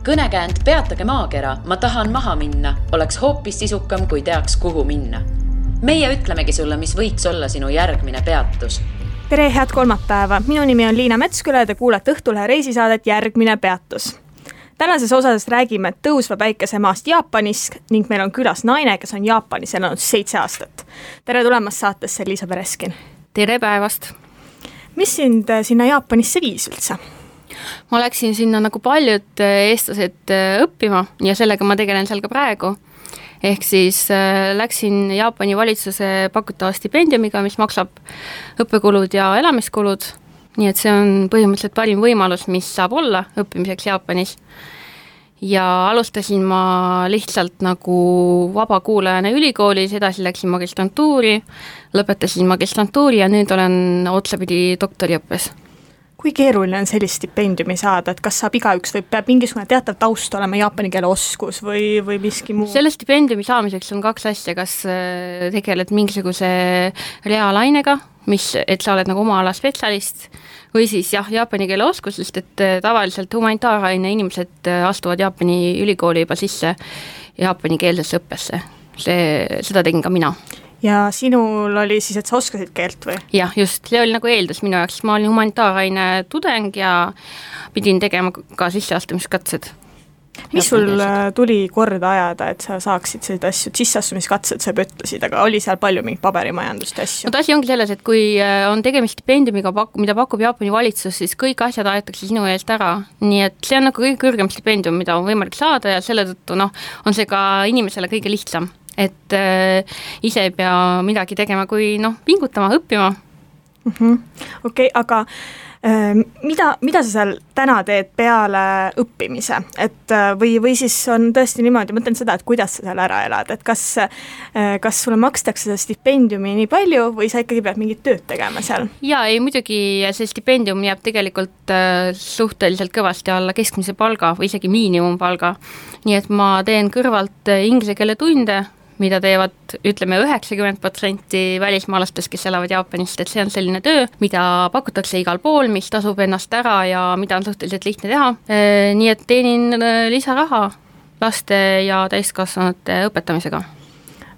Kõnekäänd Peatage maakera, ma tahan maha minna, oleks hoopis sisukam, kui teaks, kuhu minna. Meie ütlemegi sulle, mis võiks olla sinu järgmine peatus. Tere, head kolmapäeva. Minu nimi on Liina Metsküla ja te kuulete Õhtulehe reisisaadet Järgmine peatus. Tänases osas räägime tõusva päikesemaast Jaapanis ning meil on külas naine, kes on Jaapanis elanud 7 aastat. Tere tulemast saatesse, Liisa Pereskin. Tere päevast. Mis sind sinna Jaapanisse viis üldse? Ma läksin sinna nagu paljud eestlased õppima ja sellega ma tegelen seal ka praegu. Ehk siis läksin Jaapani valitsuse pakutava stipendiumiga, mis maksab õppekulud ja elamiskulud. Nii et see on põhimõtteliselt parim võimalus, mis saab olla õppimiseks Jaapanis. Ja alustasin ma lihtsalt nagu vabakuulajana ülikoolis, edasi läksin magistrantuuri, lõpetasin magistrantuuri ja nüüd olen otsapidi doktoriõppes. Kui keeruline on sellist stipendiumi saada, et kas saab igaüks või peab mingisugune teatav taust olema jaapani keele oskus või miski muu? Selle stipendiumi saamiseks on 2 asja, kas tegeled mingisuguse reaalainega, et sa oled nagu oma ala spetsialist, või siis jaapani keele oskus, sest et tavaliselt humanitaaraine inimesed astuvad Jaapani ülikooli juba sisse jaapani keelsesse õppesse. Seda tegin ka mina. Ja sinul oli siis, et sa oskasid keelt või? Jah, just, see oli nagu eeldus minu jaoks. Ma olin humanitaaraine tudeng ja pidin tegema ka sisseastumiskatsed. Mis sul tuli korda ajada, et sa saaksid sellised asju? Sisseastumiskatsed sa ütlesid, aga oli seal palju mingit paberimajandust asju? No asi ongi selles, et kui on tegemist stipendiumiga, mida pakub Jaapani valitsus, siis kõik asjad aetakse sinu eest ära. Nii et see on nagu kõige kõrgem stipendium, mida on võimalik saada ja selle tõttu on see ka inimesele kõige lihtsam. Et ise ei pea midagi tegema, kui pingutama, õppima. Okei, aga mida sa seal täna teed peale õppimise? Või siis on tõesti niimoodi, mõtlen seda, et kuidas sa seal ära elad, et kas sulle makstakse seda stipendiumi nii palju või sa ikkagi pead mingit tööd tegema seal? Jaa, ei muidugi see stipendium jääb tegelikult suhteliselt kõvasti alla keskmise palga või isegi miinimumpalga, nii et ma teen kõrvalt inglise keele tunde, mida teevad, ütleme, 90% välismaalastest, kes elavad Jaapanist, et see on selline töö, mida pakutakse igal pool, mis tasub ennast ära ja mida on suhteliselt lihtne teha. Nii et teenin lisaraha laste ja täiskasvanute õpetamisega.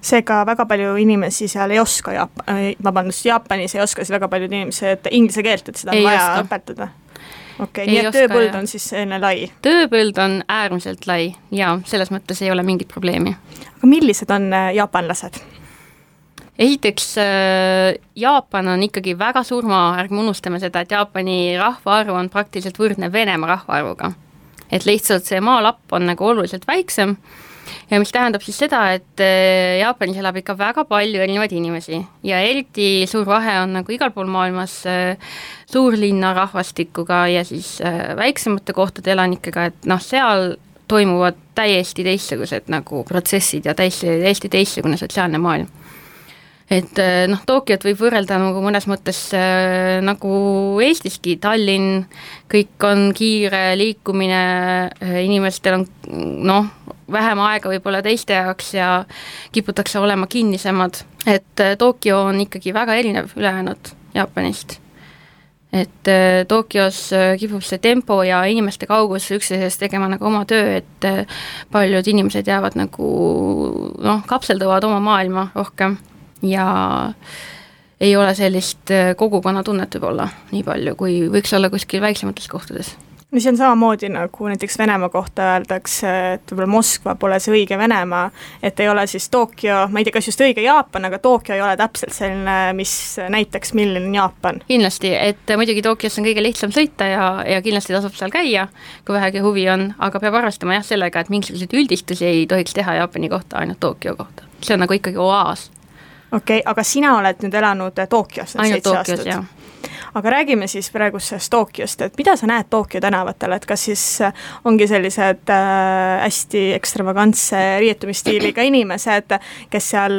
Seega väga palju inimesi seal ei oska, Jaapanis ei oska siis väga paljud inimesed inglise keelt, et seda on vaja õpetada. Okei, nii et tööpõld on siis enne lai? Tööpõld on äärmiselt lai ja selles mõttes ei ole mingit probleemi. Aga millised on jaapanlased? Esiteks, Jaapan on ikkagi väga suur maa, ärgme unustame seda, et Jaapani rahvaarv on praktiliselt võrdne Venemaa rahvaarvuga. Et lihtsalt see maalapp on nagu oluliselt väiksem ja mis tähendab siis seda, et Jaapanis elab ikka väga palju erinevaid inimesi ja eriti suur vahe on nagu igal pool maailmas suurlinna rahvastikuga ja siis väiksemate kohtade elanikega, et seal toimuvad täiesti teistsugused nagu protsessid ja täiesti teistsugune sotsiaalne maailm. Et Tokyot võib võrrelda nagu mõnes mõttes nagu Eestiski, Tallinn, kõik on kiire liikumine, inimestel on vähem aega võib-olla teiste jaoks ja kiputakse olema kinnisemad, et Tokyo on ikkagi väga erinev ülejäänud Jaapanist. Et Tokyos kipub see tempo ja inimeste kaugus üksteisest tegema nagu oma töö, et paljud inimesed jäävad nagu kapselduvad oma maailma rohkem ja ei ole sellist kogukonna tunnet võib-olla nii palju, kui võiks olla kuskil väiksemates kohtades. No see on samamoodi nagu näiteks Venemaa kohta öeldakse, et võib-olla Moskva pole see õige Venemaa, et ei ole siis Tokyo, ma ei tea, kas just õige Jaapan, aga Tokyo ei ole täpselt selline, mis näiteks milline on Jaapan. Kindlasti, et muidugi Tokyos on kõige lihtsam sõita ja kindlasti tasub seal käia, kui vähegi huvi on, aga peab arvestama sellega, et mingisuguseid üldistusi ei tohiks teha Jaapani kohta, ainult Tokyo kohta. See on nagu ikkagi oaas. Okei, aga sina oled nüüd elanud Tokyos ainult Tokyos, jah. Aga räägime siis praegusest Tokyost, et mida sa näed Tokyo tänavatel, et kas siis ongi sellised hästi ekstravagantse riietumistiiliga inimesed, kes seal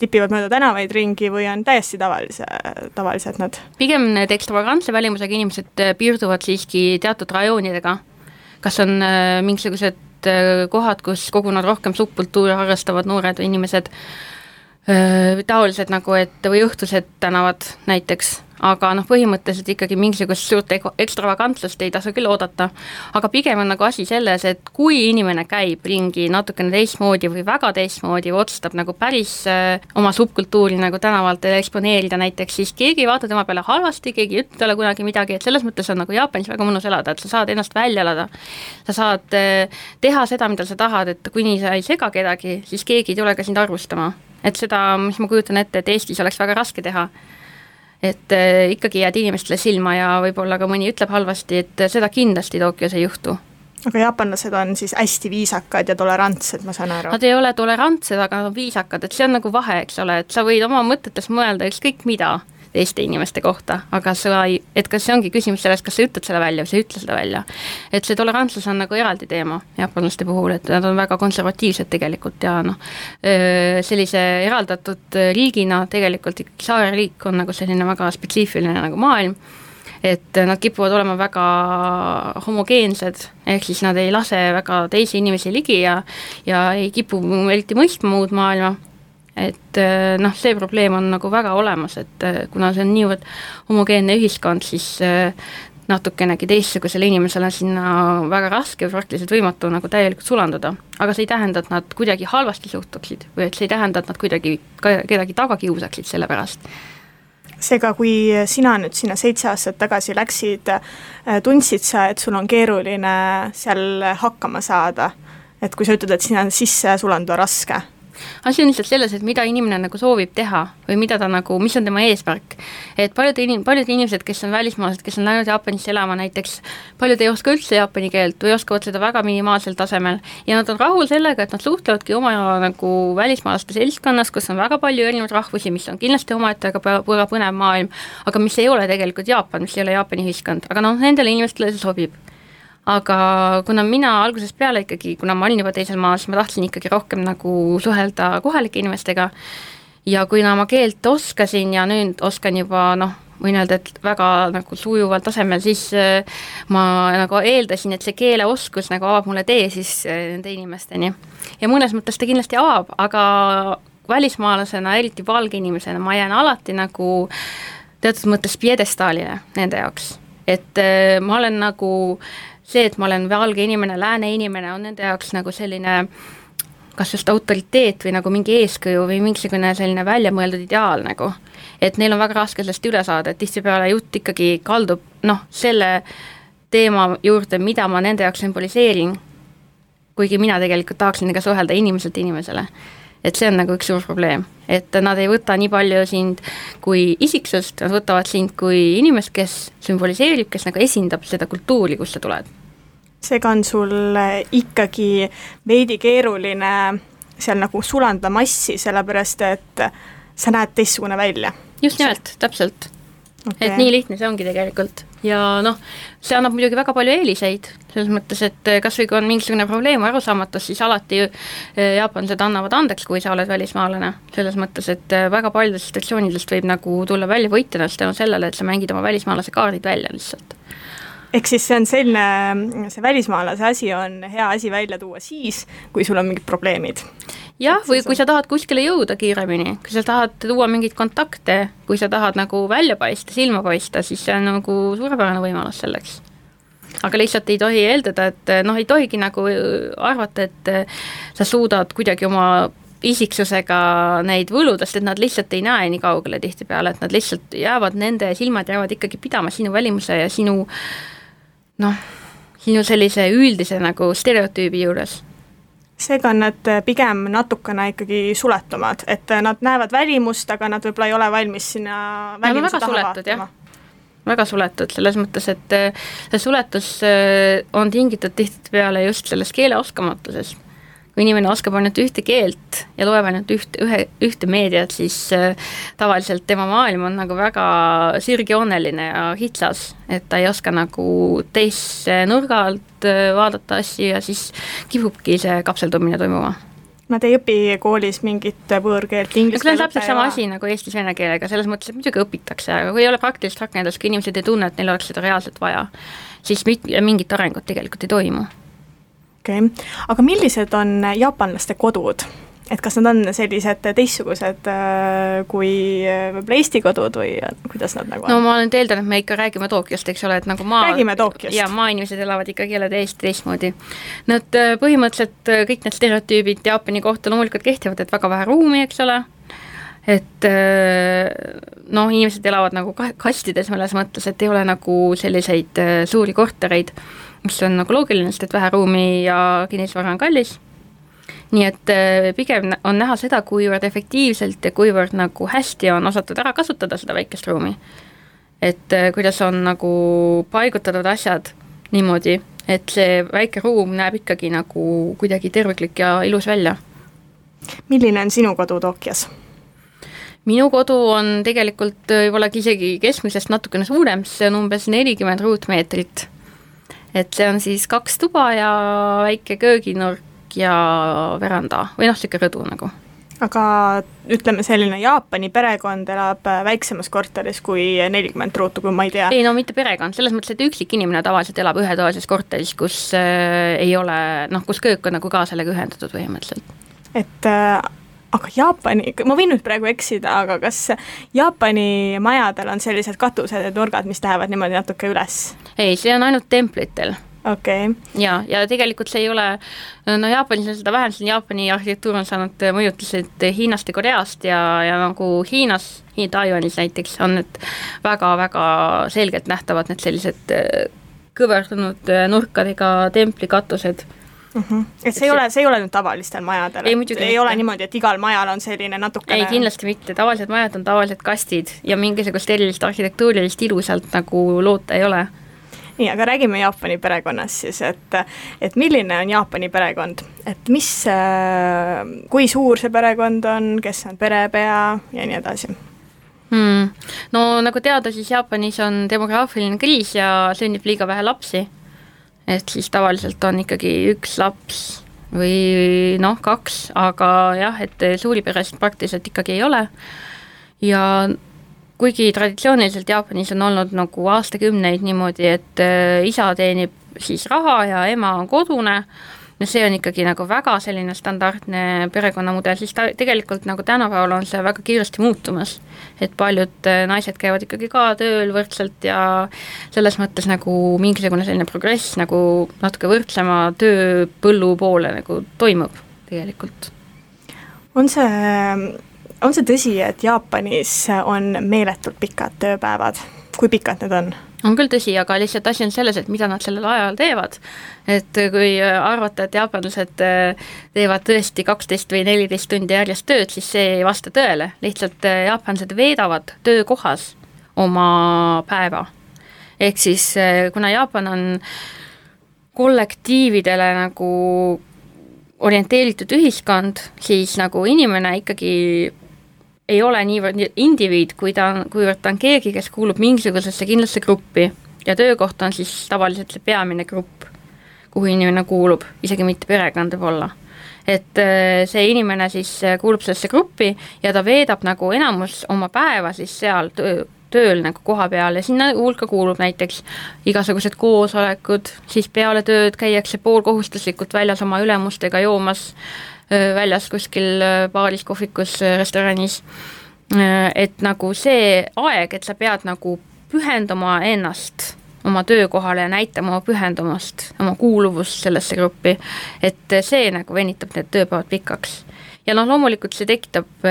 tipivad mööda tänavaid ringi või on täiesti tavalised nad? Pigem need ekstravagantse välimusega inimesed piirduvad siiski teatud rajoonidega. Kas on mingisugused kohad, kus kogunevad rohkem subkultuuri harrastavad noored või inimesed, taolised nagu, et või õhtused tänavad näiteks, aga noh, põhimõtteliselt ikkagi mingisugust suurt ekstravagantsust ei tasu küll oodata, aga pigem on nagu asi selles, et kui inimene käib ringi natukene teistmoodi või väga teistmoodi või otsustab nagu päris oma subkultuuri nagu tänavalt eksponeerida näiteks, siis keegi ei vaata tema peale halvasti, keegi ei ütle talle kunagi midagi, et selles mõttes on nagu Jaapanis väga mõnus elada, et sa saad ennast välja elada, sa saad teha seda, mida sa tahad, et kuni sa ei sega kedagi, siis keegi ei tule ka sind arvustama. Et seda, mis ma kujutan ette, et Eestis oleks väga raske teha, et ikkagi jääd inimestele silma ja võib-olla ka mõni ütleb halvasti, et seda kindlasti Tokyos ei juhtu. Aga jaapanlased on siis hästi viisakad ja tolerantsed, ma saan aru. Nad ei ole tolerantsed, aga nad on viisakad, et see on nagu vahe, eks ole, et sa võid oma mõtetes mõelda ükskõik mida teiste inimeste kohta, aga et kas see ongi küsimus sellest, kas sa ütled selle välja või sa ütle seda välja. Et see tolerantsus on nagu eraldi teema jaapanlaste puhul, et nad on väga konservatiivsed tegelikult ja noh, sellise eraldatud riigina tegelikult ikkagi saareriik on nagu selline väga spetsiifiline nagu maailm, et nad kipuvad olema väga homogeensed, ehk siis nad ei lase väga teisi inimesi ligi ja ei kipu eriti mõistma muud maailma. Et noh, see probleem on nagu väga olemas, et kuna see on niivõrd homogeenne ühiskond, siis natukenegi teistsugusele inimesele on sinna väga raske või praktiliselt võimatu nagu täielikult sulanduda. Aga see ei tähenda, et nad kuidagi halvasti suhtuksid või et see ei tähenda, et nad kuidagi kedagi taga kiusaksid selle pärast. Seega, kui sina nüüd sinna 7 aastat tagasi läksid, tundsid sa, et sul on keeruline seal hakkama saada, et kui sa ütled, et sinna sisse sulanduda raske? Asi on lihtsalt selles, et mida inimene nagu soovib teha või mida ta nagu, mis on tema eesmärk. Et paljud inimesed, kes on välismaalased, kes on läinud Jaapanisse elama näiteks, paljud ei oska üldse jaapani keelt või oskavad seda väga minimaalsel tasemel ja nad on rahul sellega, et nad suhtlevadki oma nagu välismaalaste seltskonnas, kus on väga palju erinevaid rahvusi, mis on kindlasti omaette väga põnev maailm, aga mis ei ole tegelikult Jaapan, mis ei ole Jaapani ühiskond, aga noh, nendele inimestele see sobib. Aga kuna mina algusest peale ikkagi, kuna ma olin juba teisel maal, siis ma tahtsin ikkagi rohkem nagu suhelda kohalike inimestega ja kui ma keelt oskasin ja nüüd oskan juba võin öelda, et väga nagu sujuval tasemel, siis ma nagu eeldasin, et see keeleoskus nagu avab mulle tee siis nende inimesteni. Ja mõnes mõttes ta kindlasti avab, aga välismaalasena, eriti valge inimesena, ma jään alati nagu teatud mõttes piedestaalile nende jaoks. Et ma olen nagu see, et ma olen valge inimene, lääne inimene, on nende jaoks nagu selline kas just autoriteet või nagu mingi eeskuju või mingisugune selline väljamõeldud ideaal nagu. Et neil on väga raske sellest üle saada, et tihtipeale jutt ikkagi kaldub selle teema juurde, mida ma nende jaoks sümboliseerin, kuigi mina tegelikult tahaksin ka suhelda inimeselt inimesele. Et see on nagu üks suur probleem, et nad ei võta nii palju sind kui isiksust, nad võtavad sind kui inimest, kes sümboliseerib, kes nagu esindab seda kultuuri, kus sa tuled. Seega on sul ikkagi veidi keeruline seal nagu sulanda massi, sellepärast et sa näed teistsugune välja. Just nimelt, täpselt. Okay. Et nii lihtne see ongi tegelikult. Ja see annab muidugi väga palju eeliseid, selles mõttes, et kas või kui on mingisugune probleem arusaamatus, siis alati jaapanlased annavad andeks, kui sa oled välismaalane. Selles mõttes, et väga paljudest situatsioonidest võib nagu tulla välja võitjana tänu sellele, et sa mängid oma välismaalase kaardid välja lihtsalt. Ehk siis see on selline, see välismaalase asi on hea asi välja tuua siis, kui sul on mingid probleemid. Jah, või kui sa tahad kuskile jõuda kiiremini, kui sa tahad tuua mingid kontakte, kui sa tahad nagu välja paista, silma paista, siis see on nagu suurepärane võimalus selleks. Aga lihtsalt ei tohi eeldada, et ei tohigi nagu arvata, et sa suudad kuidagi oma isiksusega neid võludest, et nad lihtsalt ei näe nii kaugele tihtipeale, et nad lihtsalt jäävad, nende silmad jäävad ikkagi pidama sinu välimuse ja sinu sellise üldise nagu stereotüübi juures. Seega on nad pigem natukene ikkagi suletumad, et nad näevad välimust, aga nad võib-olla ei ole valmis sinna välimuse taha vaatama. Väga suletud, selles mõttes, et see suletus on tingitud tihtipeale just selles keeleoskamatusest. Kui inimene oskab ainult ühte keelt ja loeb ainult ühte meediat, siis tavaliselt tema maailm on nagu väga sirgjooneline ja hitsas, et ta ei oska nagu teise nurga alt vaadata asju ja siis kipubki see kapseldumine toimuma. Nad ei õpi koolis mingit võõrkeelt, inglise keelt. See on täpselt sama asi nagu eesti vene keelega, selles mõttes, et muidugi õpitakse, aga kui ei ole praktilist rakendust, kui inimesed ei tunne, et neil oleks seda reaalselt vaja, siis mingit arengut tegelikult ei toimu. Okay. Aga millised on jaapanlaste kodud? et kas nad on sellised teistsugused kui võib-olla Eesti kodud või kuidas nad nagu on? No ma olen eeldan, et me ikka räägime Tokyost, eks ole, et nagu räägime Tokyost. Ja maainimesed elavad ikkagi jälle teistmoodi. Nad põhimõtteliselt kõik need stereotüübid Jaapani kohta loomulikult kehtivad, et väga vähe ruumi, eks ole, et inimesed elavad nagu kastides mõnes mõttes, et ei ole nagu selliseid suuri kortereid, mis on nagu loogiline, sest et vähe ruumi ja kinnisvara on kallis. Nii et pigem on näha seda, kuivõrd efektiivselt ja kuivõrd nagu hästi on osatud ära kasutada seda väikest ruumi. Et kuidas on nagu paigutatud asjad niimoodi, et see väike ruum näeb ikkagi nagu kuidagi terviklik ja ilus välja. Milline on sinu kodu Tokyos? Minu kodu on tegelikult võib-olla isegi keskmisest natukene suurem, see on umbes 40 ruutmeetrit. Et see on siis 2 tuba ja väike kööginurk ja veranda või siuke rõdu nagu. Aga ütleme selline Jaapani perekond elab väiksemas korteris kui 40 ruutu, kui ma ei tea. Ei, no mitte perekond, selles mõttes, et üksik inimene tavaliselt elab ühetoalises korteris, kus ei ole, kus köök on nagu ka sellega ühendatud põhimõtteliselt. Et aga Jaapani, ma võin nüüd praegu eksida, aga kas Jaapani majadel on sellised katused ja nurgad, mis lähevad niimoodi natuke üles? Ei, see on ainult templitel. Okay. Ja tegelikult see ei ole, Jaapanis on seda vähem, Jaapani arhitektuur on saanud mõjutused Hiinast ja Koreast ja nagu Hiinas, Taiwanis näiteks on need väga-väga selgelt nähtavad need sellised kõverdunud nurkadega templikatused. Et see ei ole nüüd tavalistel majadel, ei ole niimoodi, et igal majal on selline natukene... Ei, kindlasti mitte, tavalised majad on tavalised kastid ja mingisugust erilist arhitektuurilist ilu sealt nagu loota ei ole. Nii, aga räägime Jaapani perekonnast siis, et milline on Jaapani perekond, et kui suur see perekond on, kes on perepea ja nii edasi? No nagu teada, siis Jaapanis on demograafiline kriis ja sünnib liiga vähe lapsi. Et siis tavaliselt on ikkagi 1 laps või 2, aga jah, et suuri peresid praktiliselt ikkagi ei ole. Ja kuigi traditsiooniliselt Jaapanis on olnud nagu aastakümneid niimoodi, et isa teenib siis raha ja ema on kodune, ja see on ikkagi nagu väga selline standardne perekonnamudel, siis tegelikult nagu tänapäeval on see väga kiiresti muutumas, et paljud naised käivad ikkagi ka tööl võrdselt ja selles mõttes nagu mingisugune selline progress nagu natuke võrdsema tööpõllu poole nagu toimub tegelikult. On see tõsi, et Jaapanis on meeletult pikad tööpäevad? Kui pikad need on? On küll tõsi, aga lihtsalt asi on selles, et mida nad sellel ajal teevad. Et kui arvata, et jaapanlased teevad tõesti 12 või 14 tundi järjest tööd, siis see ei vasta tõele. Lihtsalt jaapanlased veedavad töökohas oma päeva. Ehk siis, kuna Jaapan on kollektiividele nagu orienteeritud ühiskond, siis nagu inimene ikkagi ei ole niivõrd indiviid, kuivõrd ta on keegi, kes kuulub mingisugusesse kindlasse gruppi ja töökoht on siis tavaliselt see peamine grupp, kuhu inimene kuulub, isegi mitte perekond võib olla. Et see inimene siis kuulub sellesse gruppi ja ta veedab nagu enamus oma päeva siis seal tööl nagu koha peal ja sinna hulka kuulub näiteks igasugused koosolekud, siis peale tööd käiakse poolkohustuslikult väljas oma ülemustega joomas väljas kuskil baaris, kohvikus, restoranis, et nagu see aeg, et sa pead nagu pühendama ennast oma töökohale ja näitama oma pühendumast, oma kuuluvust sellesse gruppi, et see nagu venitab need tööpäevad pikaks. Ja loomulikult see tekitab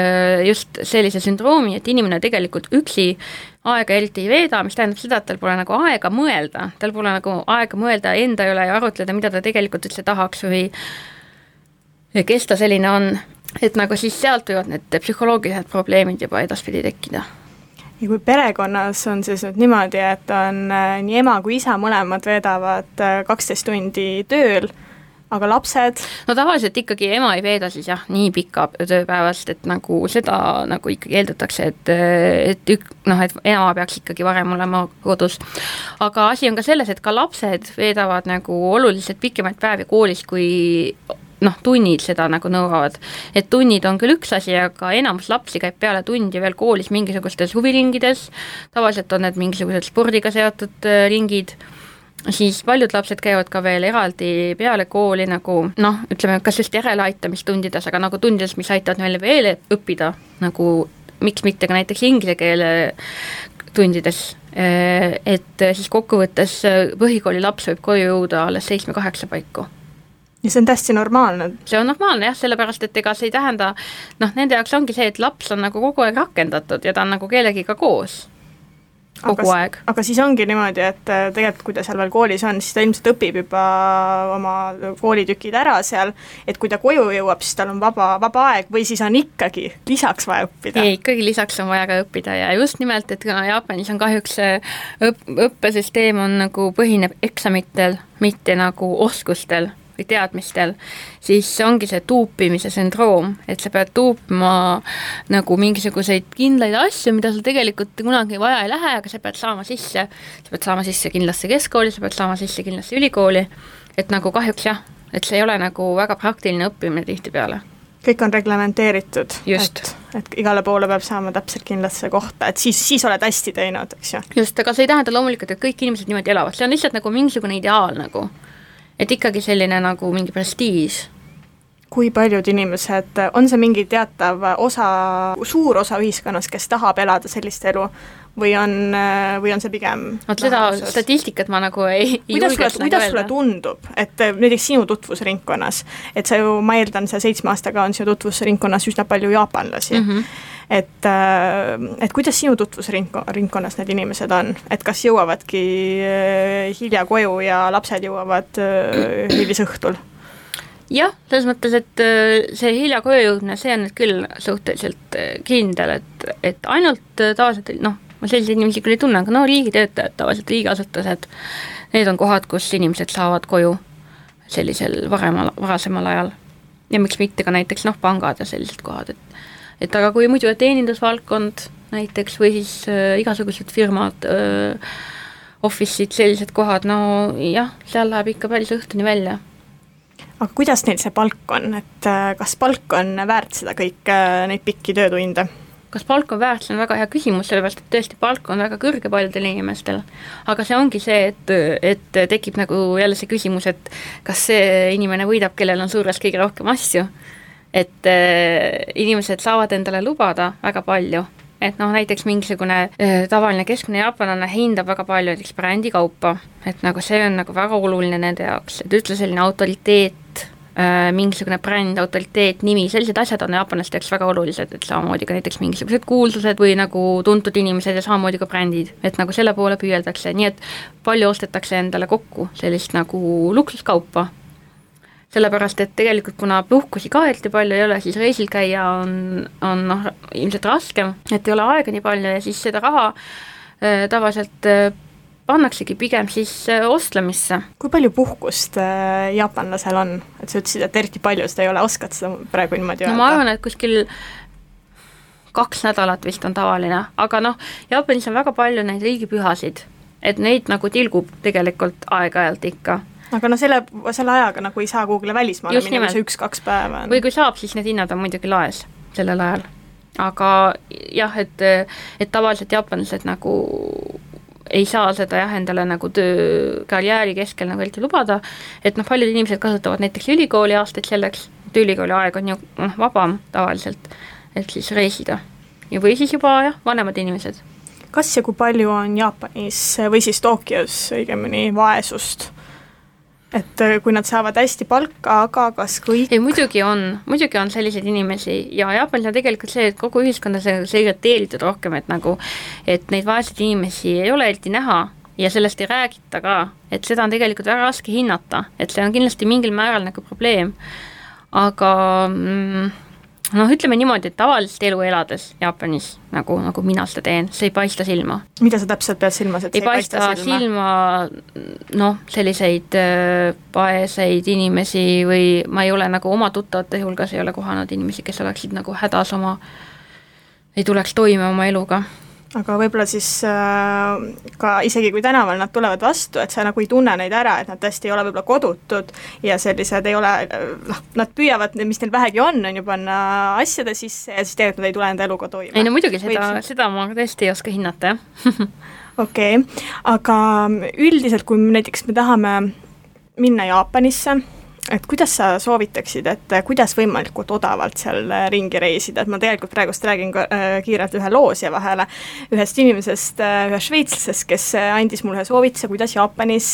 just sellise sündroomi, et inimene tegelikult üksi aega eriti ei veeda, mis tähendab seda, et tal pole nagu aega mõelda, tal pole nagu aega mõelda enda üle ja arutleda, mida ta tegelikult üldse tahaks või kes ta selline on, et nagu siis sealt võivad need psühholoogilised probleemid juba edaspidi tekkida. Ja kui perekonnas on siis nüüd niimoodi, et on nii ema kui isa mõlemad veedavad 12 tundi tööl, aga lapsed? No tavaliselt ikkagi ema ei veeda siis jah, nii pika tööpäevast, et nagu seda nagu ikkagi eeldatakse, et ema peaks ikkagi varem olema kodus. Aga asi on ka selles, et ka lapsed veedavad nagu oluliselt pikemaid päevi koolis, kui tunnid seda nagu nõuavad. Et tunnid on küll üks asi, aga enamus lapsi käib peale tundi veel koolis mingisugustes huviringides, tavaliselt on need mingisugused spordiga seotud ringid, siis paljud lapsed käivad ka veel eraldi peale kooli nagu noh, ütleme, kas just järeleaitamistundides, aga nagu tundides, mis aitavad meile veel õppida, nagu miks mitte ka näiteks inglise keele tundides, et siis kokkuvõttes põhikooli laps võib koju jõuda alles 7-8 paiku. Ja see on täiesti normaalne. See on normaalne jah, sellepärast, et ega see ei tähenda, noh, nende jaoks ongi see, et laps on nagu kogu aeg rakendatud ja ta on nagu kellegiga koos. Kogu aeg. Aga siis ongi niimoodi, et tegelikult kui ta seal veel koolis on, siis ta ilmselt õpib juba oma koolitükid ära seal, et kui ta koju jõuab, siis tal on vaba aeg või siis on ikkagi lisaks vaja õppida? Ei, ikkagi lisaks on vaja ka õppida ja just nimelt, et kuna Jaapanis on kahjuks õppesüsteem on nagu põhineb eksamitel, mitte nagu oskustel või teadmistel, siis ongi see tuupimise sündroom, et sa pead tuupima nagu mingisuguseid kindlaid asju, mida sul tegelikult kunagi vaja ei lähe, aga sa pead saama sisse kindlasti keskkooli, sa pead saama sisse kindlasti ülikooli, et nagu kahjuks jah, et see ei ole nagu väga praktiline õppimine tihtipeale. Kõik on reglementeeritud, et igale poole peab saama täpselt kindlasse kohta, et siis oled hästi teinud, eks ju. Just, aga see ei tähenda loomulikult, et kõik inimesed niimoodi elavad, see on lihtsalt nagu mingisugune ideaal nagu. Et ikkagi selline nagu mingi prestiis. Kui paljud inimesed, on see mingi teatav suur osa ühiskonnas, kes tahab elada sellist elu või on see pigem seda statistikat ma nagu ei julgeks kuidas sulle tundub, et näiteks sinu tutvusringkonnas, et sa ju, ma eeldan, see 7 aastaga on sinu tutvusringkonnas üsna palju jaapanlasi, et kuidas sinu tutvusringkonnas need inimesed on, et kas jõuavadki hilja koju ja lapsed jõuavad hilisõhtul? Jah, selles mõttes, et see hilja koju jõudne, see on nüüd küll suhteliselt kindel, et ainult tavaliselt, noh, ma selliseid inimesi küll ei tunne, aga no riigitöötajad, tavaliselt riigiasutused, need on kohad, kus inimesed saavad koju sellisel varasemal ajal. Ja miks mitte ka näiteks pangad ja sellised kohad, et aga kui muidu teenindusvaldkond näiteks või siis igasugused firmad, office'id, sellised kohad, no jah, seal läheb ikka päris õhtuni välja. Aga kuidas neil see palk on, et kas palk on väärt seda kõik neid pikki töötunde? Kas palk on väärt, see on väga hea küsimus, sellepärast, et tõesti palk on väga kõrge paljudel inimestel, aga see ongi see, et tekib nagu jälle see küsimus, et kas see inimene võidab, kellel on suures kõige rohkem asju, et inimesed saavad endale lubada väga palju, et näiteks mingisugune tavaline keskmine jaapanlane hindab väga palju näiteks brändikaupa, et nagu see on nagu väga oluline nende jaoks, et ütle selline autoriteet, mingisugune bränd, autoriteet, nimi, sellised asjad on jaapanlaste jaoks väga olulised, et samamoodi ka näiteks mingisugused kuulsused või nagu tuntud inimesed ja samamoodi ka brändid, et nagu selle poole püüeldakse, nii et palju ostetakse endale kokku sellist nagu luksuskaupa, sellepärast, et tegelikult kuna puhkusi ka eriti palju ei ole, siis reisil käia on ilmselt raskem, et ei ole aega nii palju ja siis seda raha tavaliselt pannaksegi pigem siis ostlemisse. Kui palju puhkust jaapanlasel on? Et sa ütlesid, et eriti palju seda ei ole, oskad seda praegu niimoodi öelda? No ma arvan, et kuskil 2 nädalat vist on tavaline, aga Jaapanis on väga palju neid riigipühasid, et neid nagu tilgub tegelikult aeg-ajalt ikka. Aga selle ajaga nagu ei saa kuhugile välismaale minna, see 1-2 päeva on. Või kui saab, siis need hinnad on muidugi laes sellel ajal. Aga jah, et tavaliselt jaapanlased nagu ei saa seda endale nagu karjääri keskel nagu eriti lubada, et paljud inimesed kasutavad näiteks ülikooli aastaid selleks, et ülikooli aeg on ju vabam tavaliselt, et siis reisida. Ja või siis juba vanemad inimesed. Kas ja kui palju on Jaapanis või siis Tokyos õigemini vaesust? Et kui nad saavad hästi palka, aga kas kõik? Ei, muidugi on selliseid inimesi ja Jaapanis on tegelikult see, et kogu ühiskonda see irriteeritud rohkem, et neid vaeseid inimesi ei ole eriti näha ja sellest ei räägita ka, et seda on tegelikult väga raske hinnata, et see on kindlasti mingil määral nagu probleem, aga ütleme niimoodi, et tavalist elu elades Jaapanis, nagu mina seda teen, see ei paista silma. Mida sa täpselt pead silmas, et see ei paista silma selliseid paeseid inimesi või ma ei ole nagu oma tuttavate hulgas ei ole kohanud inimesi, kes oleksid nagu hädas ei tuleks toime oma eluga. Aga võib-olla siis ka isegi kui tänaval nad tulevad vastu, et sa nagu ei tunne neid ära, et nad tõesti ei ole võib-olla kodutud ja sellised ei ole, nad püüavad, mis neil vähegi on ju panna asjade sisse ja siis tegelikult nad ei tule enda eluga toime. Ei no muidugi, seda ma tõesti ei oska hinnata, jah. okei, aga üldiselt, kui näiteks me tahame minna Jaapanisse, et kuidas sa soovitaksid, et kuidas võimalikult odavalt seal ringi reisida, et ma tegelikult praegust räägin kiirelt ühe loosja vahele ühest inimesest, ühest šveitslasest, kes andis mulle soovituse, kuidas Jaapanis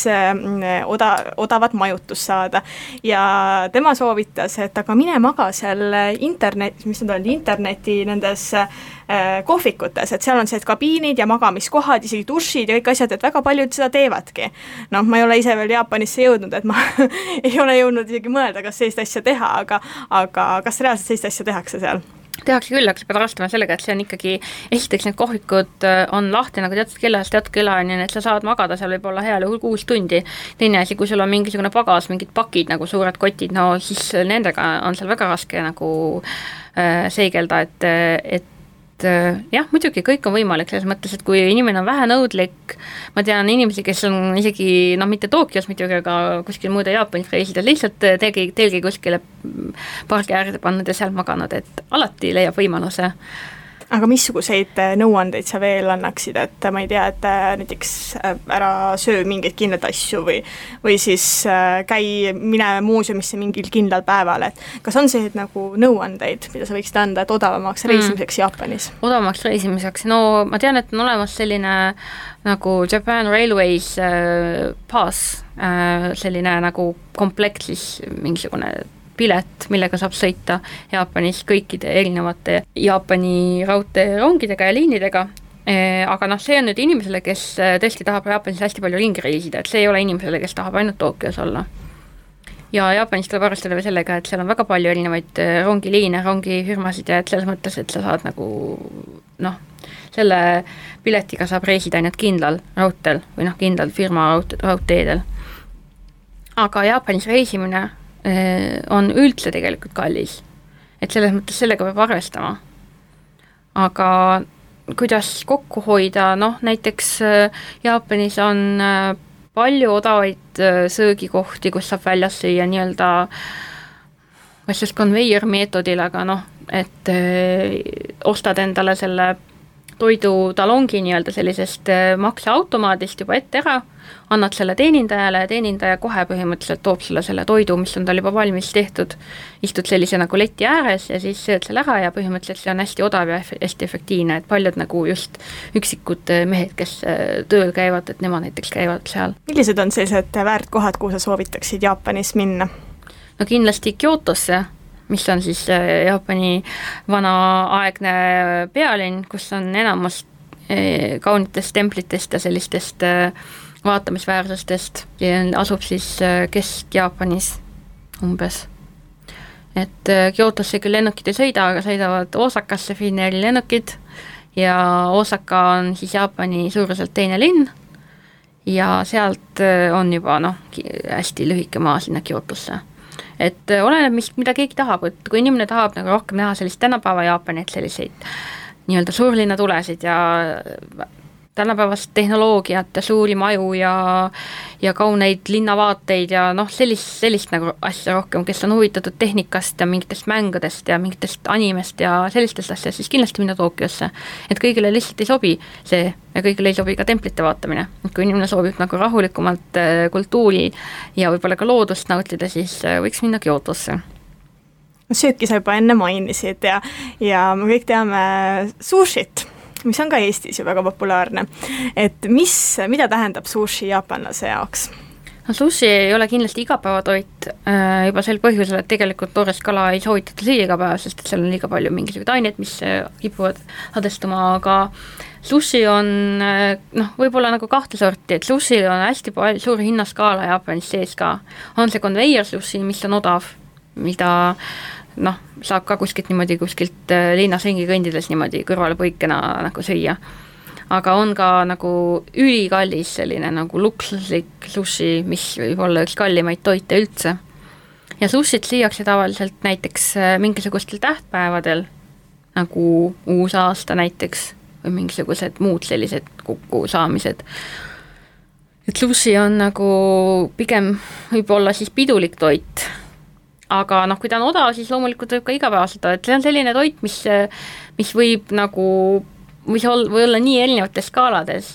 odavat majutust saada ja tema soovitas, et aga mine maga seal interneti nendes kohvikutes, et seal on sellised kabiinid ja magamiskohad, isegi dušid ja kõik asjad, et väga paljud seda teevadki. Noh, ma ei ole ise veel Jaapanisse jõudnud, et ma ei ole jõudnud isegi mõelda, kas sellist asja teha, aga kas reaalselt sellist asja tehakse seal? Tehakse küll, aga sa pead arvestama sellega, et see on ikkagi, esiteks need kohvikud on lahti nagu teatud kellani, et sa saad magada seal võib-olla heal juhul 6 tundi. Teine asi, kui sul on mingisugune pagas, mingid pakid nagu suured kotid, no siis nendega on seal väga raske nagu seigelda, et jah, muidugi kõik on võimalik selles mõttes, et kui inimene on vähe nõudlik, ma tean inimesi, kes on isegi, mitte Tokyos muidugi, aga kuskil muude Jaapanis reisida, lihtsalt telgi kuskile pargi äärde pannud ja seal maganud, et alati leiab võimaluse. Aga missuguseid nõuandeid sa veel annaksid, et ma ei tea, et näiteks ära söö mingeid kindlaid asju või siis mine muuseumisse mingil kindlal päeval, et kas on sellised nagu nõuandeid, mida sa võiksid anda, et odavamaks reisimiseks Jaapanis? Odavamaks reisimiseks, no ma tean, et on olemas selline nagu Japan Railways Pass, selline nagu komplekt siis mingisugune pilet, millega saab sõita Jaapanis kõikide erinevate Jaapani raudteerongidega ja liinidega, aga see on nüüd inimesele, kes tõesti tahab Jaapanis hästi palju ringi reisida, et see ei ole inimesele, kes tahab ainult Tokyos olla. Ja Jaapanis tuleb arvestada sellega, et seal on väga palju erinevaid rongiliine, rongifirmasid ja et selles mõttes, et sa saad nagu selle piletiga saab reisida ainult kindlal raudteel või kindlal firma raudteedel. Aga Jaapanis reisimine on üldse tegelikult kallis, et selles mõttes sellega peab arvestama. Aga kuidas kokku hoida, näiteks Jaapanis on palju odavaid söögikohti, kus saab väljas süüa nii-öelda kas just conveyor meetodil, aga et ostad endale selle toidutalongi nii-öelda sellisest makseautomaadist juba ette ära, annad selle teenindajale ja teenindaja kohe põhimõtteliselt toob sulle selle toidu, mis on tal juba valmis tehtud, istud sellise nagu leti ääres ja siis sööd selle ära ja põhimõtteliselt see on hästi odav ja hästi efektiivne, et paljud nagu just üksikud mehed, kes tööl käivad, et nemad näiteks käivad seal. Millised on sellised väärtkohad, kuhu sa soovitaksid Jaapanis minna? No kindlasti Kyotosse, mis on siis Jaapani vanaaegne pealinn, kus on enamus kaunitest templitest ja sellistest vaatamisväärsustest ja asub siis Kesk-Jaapanis umbes. Et Kyotosse küll lennukid ei sõida, aga sõidavad Osakasse Finnairi lennukid ja Osaka on siis Jaapani suuruselt teine linn ja sealt on juba hästi lühike maa sinna Kyotosse. Et oleneb, mida keegi tahab, et kui inimene tahab nagu rohkem näha sellist tänapäeva Jaapani, et selliseid nii-öelda suurlinna tulesid ja tänapäevast tehnoloogiat ja suuri maju ja kauneid linnavaateid ja sellist nagu asja rohkem, kes on huvitatud tehnikast ja mingitest mängudest ja mingitest animest ja sellistest asjast, siis kindlasti minna Tokyosse. Et kõigile lihtsalt ei sobi see ja kõigile ei sobi ka templite vaatamine. Et kui inimene soovib nagu rahulikumalt kultuuri ja võib-olla ka loodust nautida, siis võiks minna Kyotosse. Sööki sa juba enne mainisid ja me kõik teame sushit, mis on ka Eestis ju väga populaarne. Et mida tähendab sushi jaapanlase jaoks? No, sushi ei ole kindlasti igapäevatoit juba sel põhjusel, et tegelikult toorest kala ei soovitata süüa iga päev, sest seal on liiga palju mingisugused aineid, mis kipuvad hadestuma, aga sushi on võib-olla nagu kahte sorti, et sushi on hästi palju suur hinnaskaala Jaapanis sees ka. On see conveyor sushi, mis on odav, mida saab ka kuskilt linnas ringi kõndides niimoodi kõrvale põikena nagu süüa. Aga on ka nagu ülikallis selline nagu luksuslik sushi, mis võib olla üks kallimaid toite üldse. Ja sushit süüakse tavaliselt näiteks mingisugustel tähtpäevadel, nagu uus aasta näiteks, või mingisugused muud sellised kokkusaamised. Et sushi on nagu pigem võib-olla siis pidulik toit, aga kui ta on odav, siis loomulikult võib ka igapäevaselt, et see on selline toit, mis võib nagu või olla nii erinevates skaalades,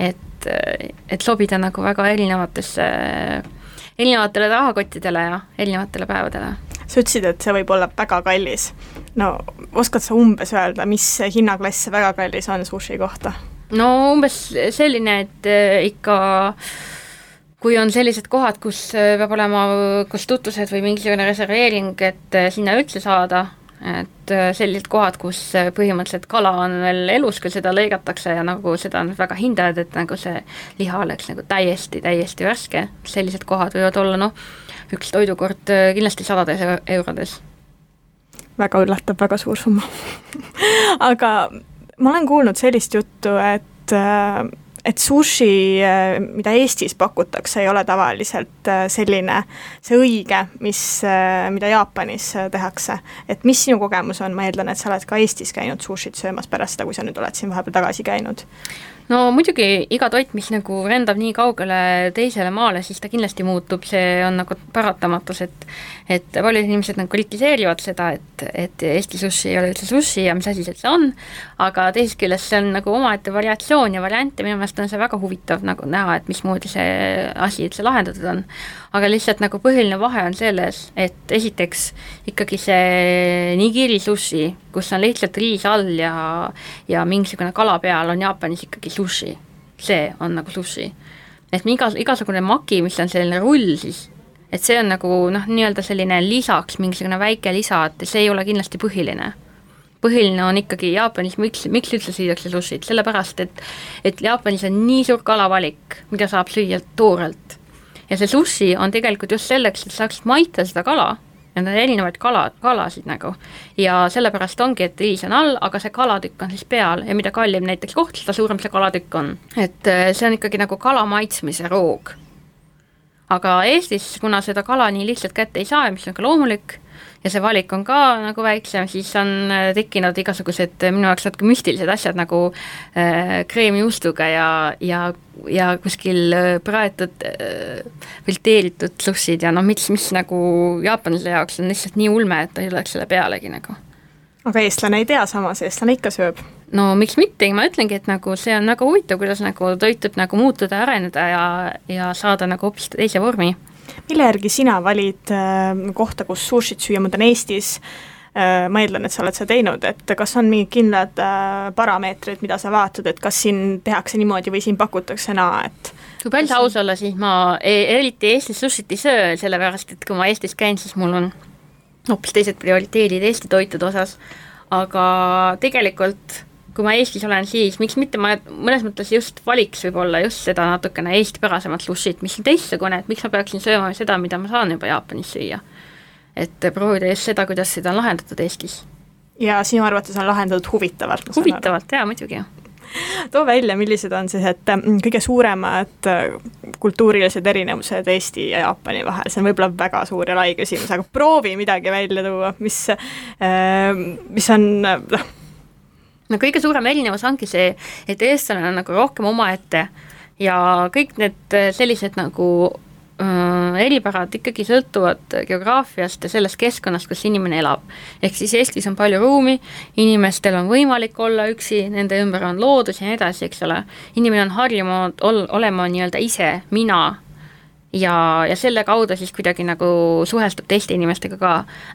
et sobida nagu väga erinevatele rahakottidele ja erinevatele päevadele. Sa ütlesid, et see võib olla väga kallis. No oskad sa umbes öelda, mis hinnaklass väga kallis on sushi kohta? No umbes selline, et ikka kui on sellised kohad, kus peab olema kus tutvused või mingisugune reserveering, et sinna üldse saada, et sellised kohad, kus põhimõtteliselt kala on veel elus, kui seda lõigatakse ja nagu seda on väga hindajad, et nagu see liha oleks nagu täiesti värske, sellised kohad võivad olla üks toidukord kindlasti 100 eurodes. Väga üllatab, väga suur summa. Aga ma olen kuulnud sellist juttu, et sushi, mida Eestis pakutakse, ei ole tavaliselt selline, see õige, mida Jaapanis tehakse. Et mis sinu kogemus on? Ma eeldan, et sa oled ka Eestis käinud sushit söömas pärast seda, kui sa nüüd oled siin vahepeal tagasi käinud. No muidugi iga toit, mis nagu rendab nii kaugele teisele maale, siis ta kindlasti muutub, see on nagu paratamatus, et paljud inimesed nagu kritiseerivad seda, et Eesti sushi ei ole üldse sushi ja mis asi see on, aga teisest küljest see on nagu omaette variatsioon ja variante, minu meelest on see väga huvitav nagu näha, et mismoodi see asi üldse lahendatud on. Aga lihtsalt nagu põhiline vahe on selles, et esiteks ikkagi see nigiri sushi, kus on lihtsalt riis all ja mingisugune kala peal on Jaapanis ikkagi sushi. See on nagu sushi. Et igasugune maki, mis on selline rull siis, et see on nagu nii-öelda selline lisaks, mingisugune väike lisa, et see ei ole kindlasti põhiline. Põhiline on ikkagi Jaapanis, miks üldse süüakse sushit, sellepärast, et Jaapanis on nii suur kalavalik, mida saab süüa toorelt. Ja see sushi on tegelikult just selleks, et saaksid maita seda kala, ja need on erinevaid kalasid nagu. Ja sellepärast ongi, et riis on all, aga see kalatükk on siis peal ja mida kallim näiteks koht, seda suurem see kalatükk on. Et see on ikkagi nagu kala maitsmise roog. Aga Eestis, kuna seda kala nii lihtsalt kätte ei saa, mis on ka loomulik, ja see valik on ka nagu väiksem, siis on tekkinud igasugused minu jaoks natuke müstilised asjad nagu kreemijuustuga ja kuskil praetud filteeritud sushid ja mis nagu jaapanlase jaoks on lihtsalt nii ulme, et ta ei oleks selle pealegi nagu. Aga eestlane ei tea samas, eestlane ikka sööb. No miks mitte, ma ütlengi, et nagu see on nagu huvitav, kuidas nagu toitub nagu muutuda, areneda ja saada nagu hoopis teise vormi. Mille järgi sina valid kohta, kus sushit süüa, ma olen Eestis, ma eeldan, et sa oled seda teinud, et kas on mingid kindlad parameetrid, mida sa vaatad, et kas siin tehakse niimoodi või siin pakutakse et kui päris aus olla, siis ma eriti Eestis sushit ei söö, sellepärast, et kui ma Eestis käin, siis mul on hoopis teised prioriteedid Eesti toitude osas, aga tegelikult kui ma Eestis olen, siis miks mitte ma mõnes mõttes just valiks võib-olla just seda natukene eestipärasemat sushit, mis on teistsugune, et miks ma peaksin sööma seda, mida ma saan juba Jaapanis süüa. Et proovida just seda, kuidas seda on lahendatud Eestis. Ja sinu arvates on lahendatud huvitavalt? Huvitavalt, jaa, muidugi. Too välja, millised on siis, et kõige suuremad kultuurilised erinevused Eesti ja Jaapani vahel, see on võib-olla väga suur ja lai küsimus, aga proovi midagi välja tuua, mis on No kõige suurem erinevus ongi see, et eestlane on nagu rohkem omaette ja kõik need sellised nagu eripärad ikkagi sõltuvad geograafiast ja sellest keskkonnast, kus inimene elab. Ehk siis Eestis on palju ruumi, inimestel on võimalik olla üksi, nende ümber on loodus ja nii edasi, eks ole. Inimene on harjunud olema nii-öelda ise, mina ja selle kaudu siis kuidagi nagu suhestub teiste inimestega ka.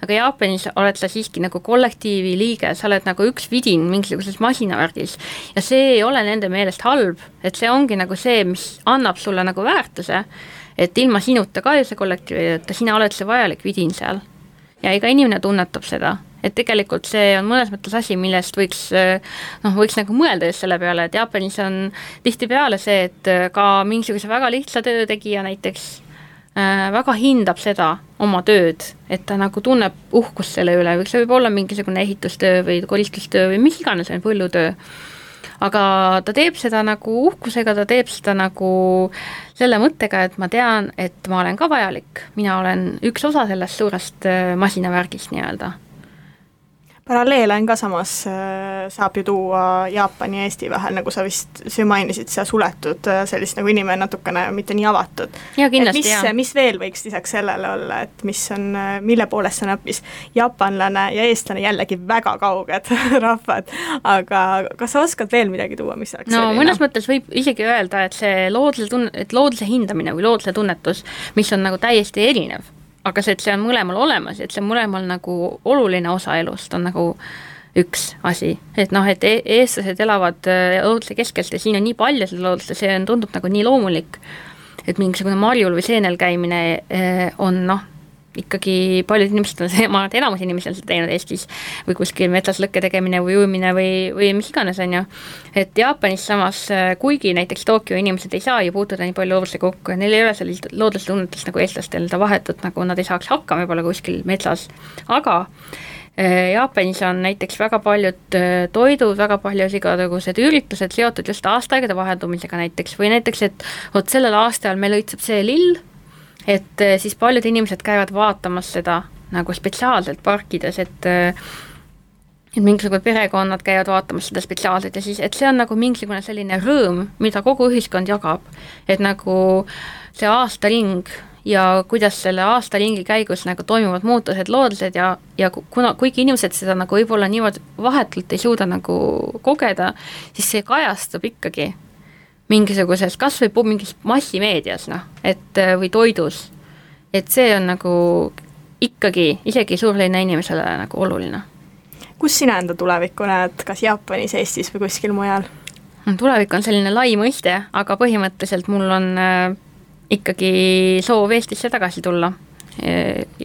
Aga Jaapanis oled sa siiski nagu kollektiivi liige, sa oled nagu üks vidin mingisuguses masinavärgis ja see ei ole nende meelest halb, et see ongi nagu see, mis annab sulle nagu väärtuse, et ilma sinuta ka see kollektiivi, et sina oled see vajalik vidin seal ja iga inimene tunnetab seda, et tegelikult see on mõnes mõttes asi, millest võiks nagu mõelda just selle peale, et Jaapanis on tihtipeale see, et ka mingisuguse väga lihtsa töötegija näiteks väga hindab seda oma tööd, et ta nagu tunneb uhkust selle üle, või see võib olla mingisugune ehitustöö või koristustöö või mis iganes on põllutöö. Aga ta teeb seda nagu uhkusega, ta teeb seda nagu selle mõttega, et ma tean, et ma olen ka vajalik. Mina olen üks osa sellest suurest masinavärgist nii-öelda. paralleele on ka samas, saab ju tuua Jaapani ja Eesti vahel, nagu sa vist mainisid, see suletud sellist nagu inimene natukene mitte nii avatud. Ja kindlasti, mis veel võiks lisaks sellele olla, et mis on, mille poolest on hoopis jaapanlane ja eestlane jällegi väga kauged rahvad, aga kas sa oskad veel midagi tuua, mis oleks selline? Mõnes mõttes võib isegi öelda, et see looduse hindamine või looduse tunnetus, mis on nagu täiesti erinev, aga see, et see on mõlemal olemas, et see on mõlemal nagu oluline osa elust, on nagu üks asi. Et et eestlased elavad looduse keskelt ja siin on nii palju seda loodust ja see tundub nagu nii loomulik, et mingisugune marjul või seenel käimine on ikkagi paljud inimesed on see, ma arvan, et enamus inimesed on seda teinud Eestis või kuskil metsas lõkke tegemine või ujumine või mis iganes on ju. Et Jaapanis samas, kuigi näiteks Tokyo inimesed ei saa ju puutuda nii palju loodusega kokku ja neil ei ole sellist looduse tunnetust nagu eestlastel, ta vahetut nagu nad ei saaks hakkama võib-olla kuskil metsas, aga Jaapanis on näiteks väga paljud toidud, väga paljud igasugused üritused seotud just aastaaegade vaheldumisega näiteks või näiteks, et sellel aastal meil õitseb see lill, et siis paljud inimesed käivad vaatamas seda nagu spetsiaalselt parkides, et mingisugused perekonnad käivad vaatamas seda spetsiaalselt ja siis, et see on nagu mingisugune selline rõõm, mida kogu ühiskond jagab, et nagu see aastaring ja kuidas selle aastaringi käigus nagu toimuvad muutused loodused ja kuigi inimesed seda nagu võib-olla niimoodi vahetult ei suuda nagu kogeda, siis see kajastub ikkagi mingisuguses, kas või mingis massimeedias, et või toidus, et see on nagu ikkagi isegi suurlinna inimesele nagu oluline. Kus sina enda tulevikku näed, kas Jaapanis, Eestis või kuskil mujal? Tulevik on selline lai mõiste, aga põhimõtteliselt mul on ikkagi soov Eestisse tagasi tulla,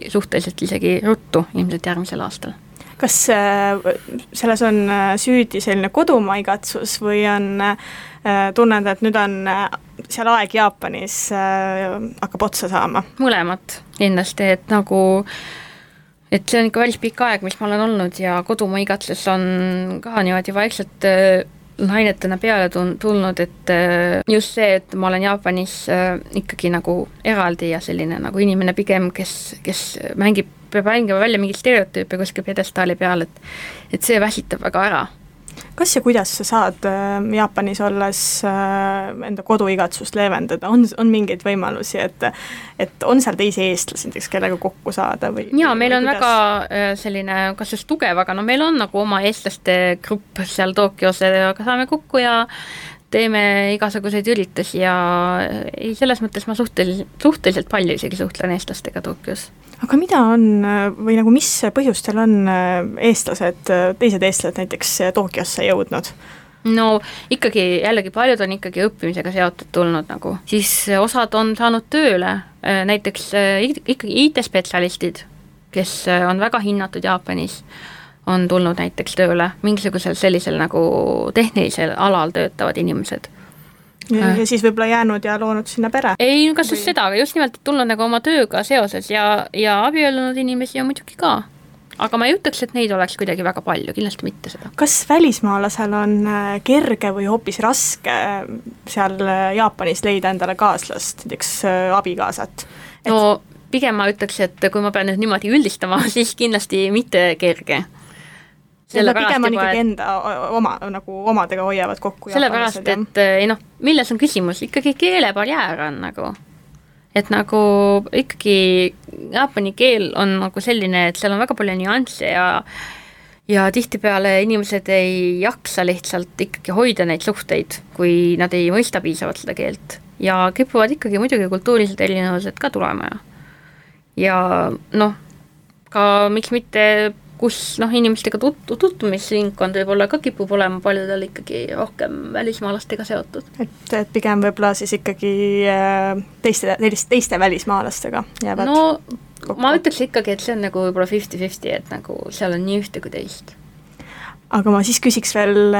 suhteliselt isegi ruttu, ilmselt järgmisel aastal. Kas selles on süüdi selline kodumaa igatsus või on tunned, et nüüd on seal aeg Jaapanis hakkab otsa saama? Mõlemat kindlasti, et nagu et see on ikka päris pikk aeg, mis ma olen olnud ja kodumaa igatsus on ka niimoodi vaikselt ainetena peale tulnud, et just see, et ma olen Jaapanis ikkagi nagu eraldi ja selline nagu inimene pigem, kes peab mängima välja mingit stereotüüpe kuskil pedestaali peal, et see väsitab väga ära. Kas ja kuidas sa saad Jaapanis olles enda koduigatsust leevendada? On mingeid võimalusi, et on seal teisi eestlasi, kellega kokku saada? Jaa, meil on väga selline, kas just tugev, aga meil on nagu oma eestlaste grupp seal Tokyos, aga saame kokku ja teeme igasuguseid üritusi ja selles mõttes ma suhteliselt palju isegi suhtlen eestlastega Tokyos. Aga mida on või nagu mis põhjustel on teised eestlased näiteks Tokyosse jõudnud? No ikkagi jällegi paljud on ikkagi õppimisega seotud tulnud nagu, siis osad on saanud tööle, näiteks ikkagi IT-spetsialistid, kes on väga hinnatud Jaapanis, on tulnud näiteks tööle, mingisugusel sellisel nagu tehnilisel alal töötavad inimesed. Ja siis võib-olla jäänud ja loonud sinna pere? Ei, kas just seda, aga just nimelt tulnud nagu oma tööga seoses ja abiellunud inimesi on muidugi ka. Aga ma ei ütleks, et neid oleks kuidagi väga palju, kindlasti mitte seda. Kas välismaalasel on kerge või hoopis raske seal Jaapanis leida endale kaaslast, näiteks abikaasat? No pigem ma ütleks, et kui ma pean nüüd niimoodi üldistama, siis kindlasti mitte kerge. Pigem on ikkagi enda nagu omadega hoiavad kokku. Sellepärast, et milles on küsimus, ikkagi keelebarjäär on nagu, et nagu ikkagi jaapani keel on nagu selline, et seal on väga palju nüansse ja tihtipeale inimesed ei jaksa lihtsalt ikkagi hoida neid suhteid, kui nad ei mõista piisavalt seda keelt ja kipuvad ikkagi muidugi kultuurilised erinevused ka tulema ja ka miks mitte kus inimestega tutvumisringkond võib-olla ka kipub olema paljudel ikkagi rohkem välismaalastega seotud. Et pigem võib-olla siis ikkagi teiste välismaalastega jäävad kokku. Ma ütleks ikkagi, et see on nagu võib-olla 50-50, et nagu seal on nii ühte kui teist. Aga ma siis küsiks veel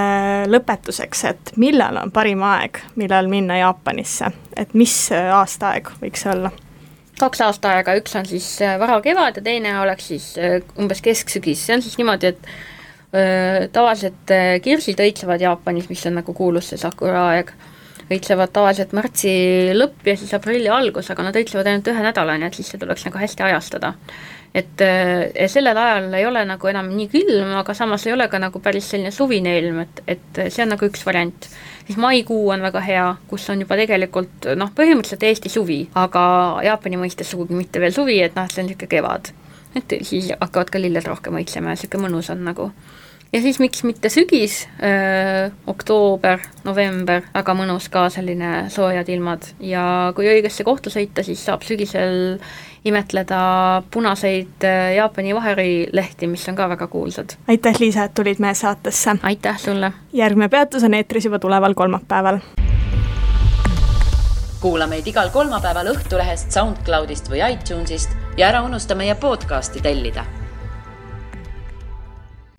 lõpetuseks, et millal on parim aeg, millal minna Jaapanisse, et mis aastaaeg võiks olla? 2 aastaaega, üks on siis vara kevad ja teine oleks siis umbes kesksügis. See on siis niimoodi, et tavaliselt kirsid õitsevad Jaapanis, mis on nagu kuulus see sakura aeg, õitsevad tavaliselt märtsi lõpp ja siis aprilli algus, aga nad õitsevad ainult 1 nädala, nii et siis see tuleks nagu hästi ajastada. Et sellel ajal ei ole nagu enam nii külm, aga samas ei ole ka nagu päris selline suvine ilm, et see on nagu üks variant. Siis maikuu on väga hea, kus on juba tegelikult põhimõtteliselt Eesti suvi, aga Jaapani mõistes sugugi mitte veel suvi, et see on niisugune kevad. Et siis hakkavad ka lilled rohkem õitsema ja niisugune mõnus on nagu. Ja siis miks mitte sügis, oktoober, november, väga mõnus ka selline soojad ilmad ja kui õigesse kohta sõita, siis saab sügisel imetleda punaseid Jaapani vaherilehti, mis on ka väga kuulsad. Aitäh, Liisa, et tulid meie saatesse. Aitäh sulle. Järgmine peatus on eetris juba tuleval kolmapäeval. Kuula meid igal kolmapäeval Õhtulehest, SoundCloudist või iTunesist ja ära unusta meie podcasti tellida.